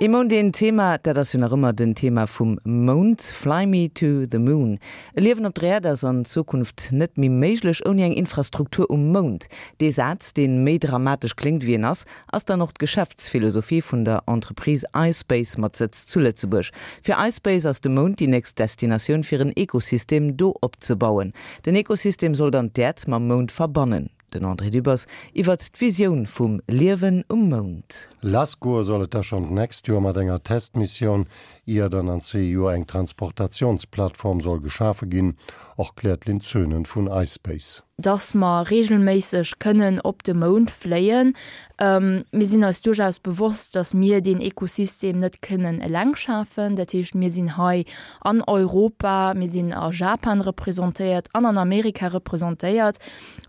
Ee Mount, een Thema, dat ass jo nach ëmmer den Thema vum Mount. Fly me to the moon. E Liewen op der Äerd ass an Zukunft net méi méiglech ouni eng Infrastruktur um Mound. Dee Saz, dee méi dramatesch kléngt wéi en ass, ass dann och d'Geschäftsphilosophie vun der Entreprise iSpace mat Sëtz zu Lëtzebuerg. Fir iSpace ass de Mound déi nächst Destinatioun fir en Ekosystem do opzebauen. Den Ekosystem soll dann d'Äerd mam Mound verbannen. Den André Dübbers iwwert d'Visioun vum Liewen um Mound. Lass goe soll et da schonn d'nächst Joer mat enger Testmissioun, ier dann an zwee Joer eng Transportatiounsplattform soll geschafe ginn, erkläert d'Lynn Zöhnen vun iSpace. Dass mer reegelméisseg kënnen op de Mound fléien. Mir sinn eis duerchaus bewosst, dass mir deen Ekosystem net kënnen eleng schafen. Dat heescht, mir sinn hei an Europa, mir sinn a Japan representéiert an an Amerika representéiert.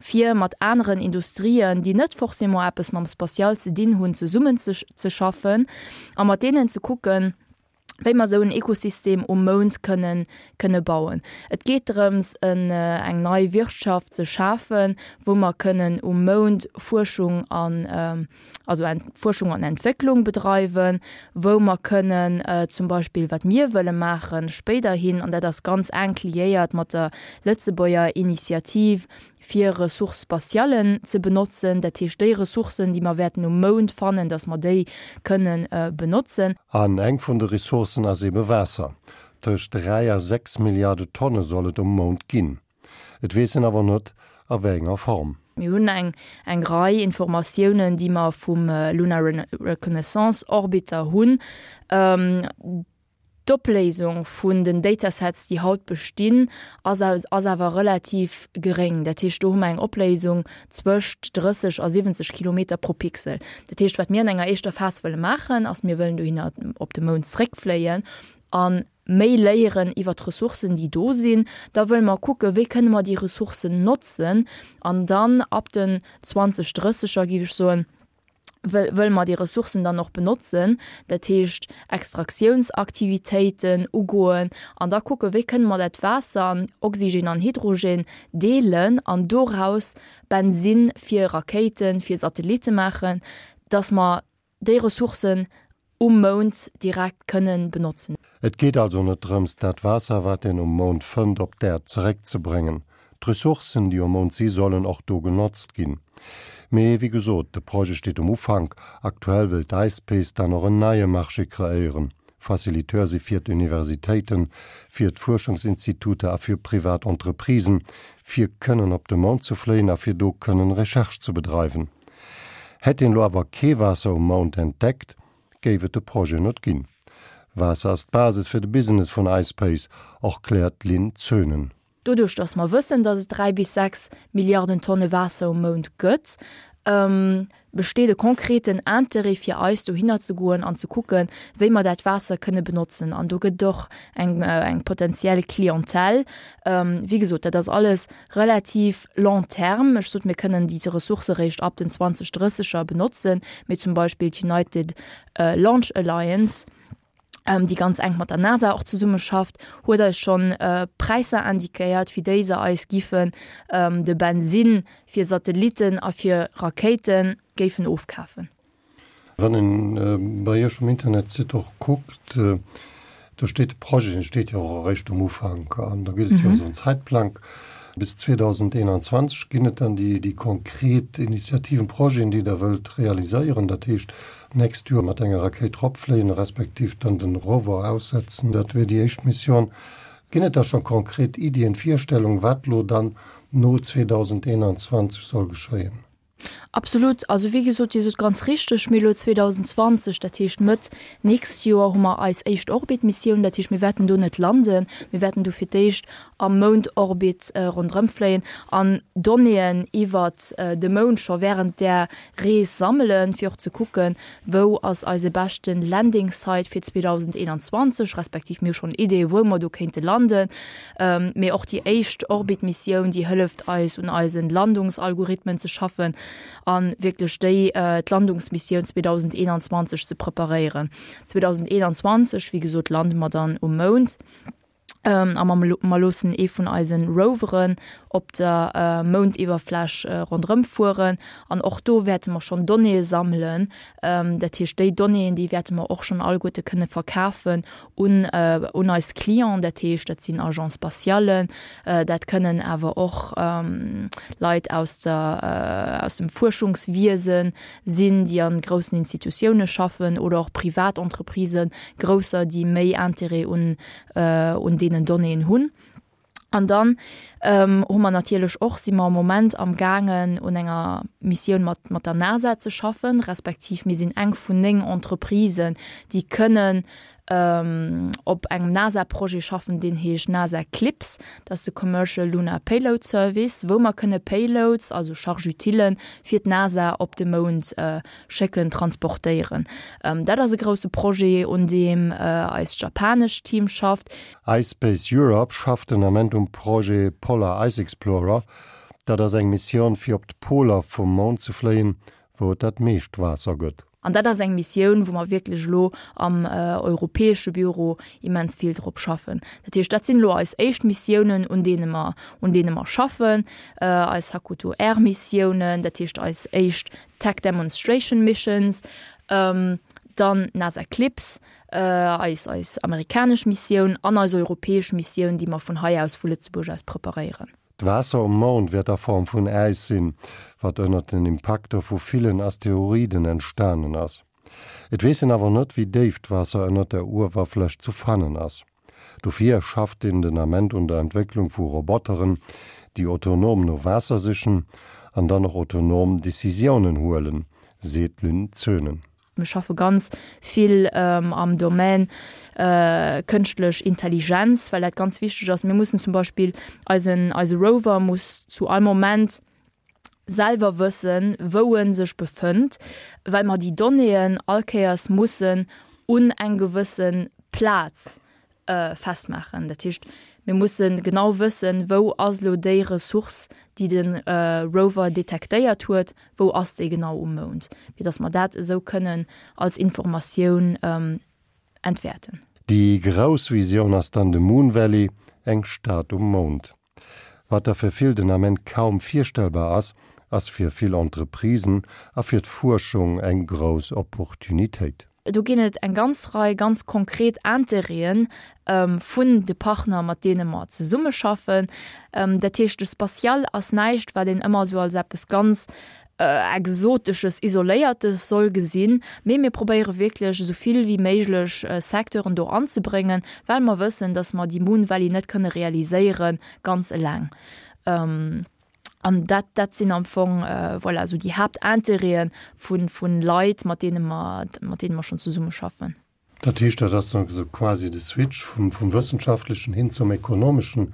fir mat aneren Industrien, déi net forcément eppes mam Spatial ze dinn hunn, zesummen ze ze schaffen a mat deenen ze kucken, wéi mer esou en Ekosystem um Mound kënnen kënne bauen. Et geet drëms, en eng nei Wirtschaft ze schafen, wou mer kënnen um Mound Fuerschung an also Fuerschung an Entwécklung bedreiwen, wou mer kënnen zum Beispill, wat mir wëlle maachen spéiderhin, an dat ass ganz enk liéiert mat der Lëtzebuerger Initiativ, fir Ressources spatiales ze benotzen, dat heescht déi Ressourcen, déi mer wäerten um Mound fannen, datt mer déi kënnen benotzen. An eng vun de Ressourcen ass ebe Waasser. Tëscht 3 a 6 Milliarde Tonne soll et um Mound ginn. Et weess een awer net, a wéi enger Form. Mir hunn eng eng Rei Informatiounen, déi mer vum Lunar Reconnaissance Orbiter hunn. D'Opléisung vun den Datasets, déi haut bestinn, ass ass awer relativ geréng. Dat heescht, do hu mer eng Opléisung zwëscht 30 a 70 Kilometer pro Pixel. Dat heescht, wat mir an enger éischter Phas wëlle maachen, ass, mir wëllen dohinner op de Mound zréckfléien an méi léieren iwwer d'Ressourcen, déi do sinn. Da wëlle mer kucken, wéi kënne mer déi Ressourcen notzen. An dann ab den 2030er, géif ech soen, wëlle mer déi Ressourcen dann och benotzen, dat heescht Extraktiounsaktivitéiten ugoen an da kucken, wéi kënne mer dat Waasser an Oxygen an Hydrogen deelen an doraus Bensinn fir Rakéiten, fir Satellitte maachen, dass mer déi Ressourcen um Mound direkt kënnen benotzen. Et geet also net drëms, dat Waasser, wat een um Mound fënnt, op d'Äerd zeréckzebréngen. D'Ressourcen, déi um Mound si, sollen och do genotzt ginn. Mee wéi gesot, de Projet steet um Ufank. Aktuell wëll d'ISPACE dann och en neie Marché kreéieren. Faciliteur si fir d'Universitéiten, fir d'Fuerschungsinstituter a fir privat Entreprisen, fir kënnen op de Mound ze fléien a fir do kënnen Recherche ze bedreiwen. Hätt een elo awer kee Waasser um Mound entdeckt, géif et de Projet net ginn. Waasser ass d'Basis fir de Business vun iSpace, erkläert d'Lynn Zöhnen. Doduerch datt mer wëssen, datt et 3 bis 6 Milliarden Tonne Waasser um Mound gëtt, besteet e konkreten Interêt fir eis dohinner ze goen an ze kucken, wéi mer dat Waasser kënne benotzen. An do gëtt et och eng eng potenziell Clientèle. Wéi gesot, dat ass alles relativ long terme. Ech sot, mir kënnen déi Ressourcë réischt ab den 2030er benotzen, mee zum Beispill d'United Launch Alliance, déi ganz enk mat der NASA och zesummeschafft, huet eis schonn Präisser indiquéiert, fir déi se eis giffen de Bensinn fir Satellitten a fir Rakéite géifen ofkafen. Wann een bei Iech um Internetsite och kuckt, do steet de Projet, dee steet jo och eréischt um Ufank an da gëtt et jo esou en Zäitplang. Bis 2021 ginn et dann déi, déi konkret Initiativen, Projeten, déi Der wëllt realiséieren. Dat heescht, d'nächst Joer mat enger Rakéit eropfléien, respektiv dann den Rover aussetzen, dat wier déi éischt Mission. Ginn et da scho konkret Iddien, Virstellungen, wat elo dann no 2021 soll geschéien? Absolut. Also wéi gesot, Dir sot ganz richteg, mir elo 2020, dat heescht Mëtt nächst Joer, hu mer eis éischt Orbitmissioun. Dat heescht, mir wäerten do net landen, mir wäerten do fir d'éischt am Moundorbit ronderëmfléien an Donnéeën iwwert de Mound scho während där Rees sammelen, fir och ze kucken, wou ass eise beschte Landing Site fir 2021, respektiv mir hu schonn Ideeë wou mer do kéinte landen. Mee och déi éischt Orbit-Missioun, déi hëlleft eis un eise Landungsalgorithmen ze schaffen a wierklech déi d'Landungsmissioun 2021 ze preparéieren. 2021, wéi gesot, lande mer dann um Mound a mer loossen ee vun eise Roveren. op der Moundiwwerfläch ronderëm fueren. An och do wäerte mer schonn Donnéeë sammelen. Dat heescht, déi Donnéeën, déi wäerte mer och schonn alleguerte kënne verkafen un, un eis Clienten. Dat heescht, dat sinn Agence spatialen, dat kënnen awer och Leit aus der, aus dem Fuerschungswiese sinn, déi a groussen Institutioune schaffen oder och privat Entreprisen, grousser, déi méi Intérêt un, un deenen Donnéeën hunn. An dann hu mer natierlech och, si mer am Moment am gaangen un enger Missioun mat, mat der NASA ze schaffen, respektiv mir sinn eng vun 9 Entreprisen, déi kënnen op engem NASA-Projet schaffen, deen heescht NASA CLPS, dat ass de Commercial Lunar Payload Service, wou mer kënne Payloads, also Charge-utilen, fir d'NASA op de Mound schécken, transportéieren. Dat ass e grousse Projet, un deem eist japanescht Team schafft. ISpace Europe schafft den Ament um Projet Polar Ice Explorer. Dat ass eng Missioun fir op d'Poler vum Mound ze fléien, wou et dat meescht Waasser gëtt. An dat ass eng Missioun, wou mer wierklech elo am europäesche Büro immens vill drop schaffen. Dat heescht, dat sinn elo eis éischt Missiounen, un deene mer, un deene mer schaffen, eis Hakuto R-Missiounen, dat heescht eis éischt Tech Demonstration Missions, dann NASA Eclipse, eis eis amerikanesch Missioun an eis europäesch Missioun, déi mer vun hei aus, vu Lëtzebuerg aus preparéieren. D'Waasser um Mound wäert a Form vun Äis sinn, wat ënnert den Impakter vu villen Asteroiden entstanen ass. Et weess een awer net, wéi déif d'Waasser ënnert der Uewerfläch zu fannen ass. Dofir schafft een den Ament un der Entwécklung vu Roboteren, déi autonom no Waasser sichen an dann och autonom Decisiounen huelen, seet d'Lynn Zönen. Mir schaffe ganz vill am Domaine kënschtlech Intelligenz, well dat ganz wichteg ass. Mir mussen zum Beispill eisen, eise Rover muss zu all Moment selwer wëssen, wou e sech befënnt, well mer déi Donnéeën all Kéiers mussen un eng gewësse Plaz festmaachen. Dat heescht, mir musse genau wëssen, wou ass elo déi Ressource, déi de Rover detektéiert huet, wou ass déi genau um Mound, fir datt mer dat esou kënnen als Informatioun entwäerten. Déi grouss Visioun ass dann de Moon Valley, eng Stad um Mound. Wat der fir vill den Ament kaum virstellbar ass, ass fir vill Entreprisen a fir d'Fuerschung eng grouss Opportunitéit. Do ginn et eng ganz Rei ganz konkret Interêten vun de Partner, mat deene mer zesummeschaffen. Dat heescht, de Spatial ass näischt, wat een ëmmer esou als eppes ganz Exotesches, Isoléiertes soll gesinn, mee mir probéiere wierklech esou vill wéi méiglech Secteuren do anzebréngen, well mer wëssen, dass mer déi Moon Valley net kënne realiséiere ganz eleng. An dat, dat sinn am Fong, voilà, esou déi Haaptintérêtë vu Leit, mat deene mer, mat deene mer schonn zesummeschaffen. Dat heescht, dat ass dann esou quasi de Switch vum, vum Wëssenschaftlechen hin zum Ekonomeschen,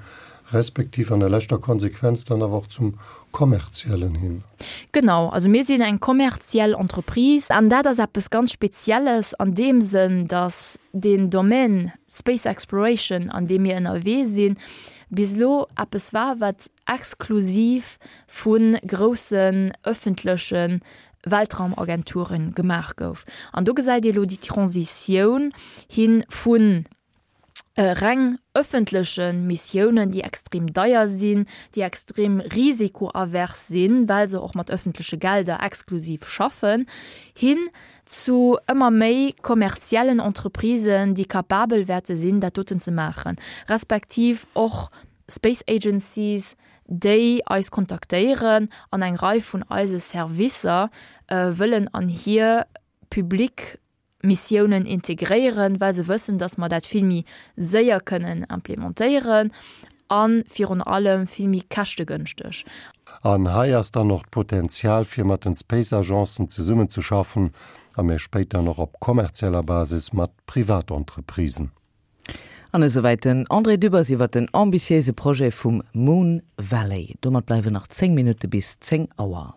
respektiv an der leschter Konsequenz dann awer och zum Kommerziellen hin. Genau, also mir sinn eng kommerziell Entreprise an dat ass eppes ganz Spezielles an deem Sënn, datt deen Domaine Space Exploration, an deem mir ënnerwee sinn, bis elo eppes war, wat exklusiv vu groussen ëffentleche Weltraumagenturen gemaach gouf. An do gesäit ee lo déi Transitioun hi vu reng ëffentleche Missiounen, déi extrem deier sinn, déi extrem risikoavers sinn, well se och mat ëffentleche Gelder exklusiv schaffen, hin zu ëmmer méi kommerziellen Entreprisen, déi capabel wäerte sinn, dat doten ze maachen, respektiv och Space Agencies, déi eis kontaktéieren an eng Rei vun eise Servicer wëllen an hir public Missiounen integréieren, well se wëssen, dass mer dat vill méi séier kënnen implementéieren a virun allem vill méi käschtegënschteg. An hei ass dann och d'Potenzial fir mat den Space Agencen zesummenzeschaffen a méi spéit dann och op kommerzieller Basis mat Privatentreprisen. An esouwäit den André Dübbers iwwer den ambitiéise Projet vum Moon Valley. Domat bleiwen nach 10 Minutte bis 10 Auer.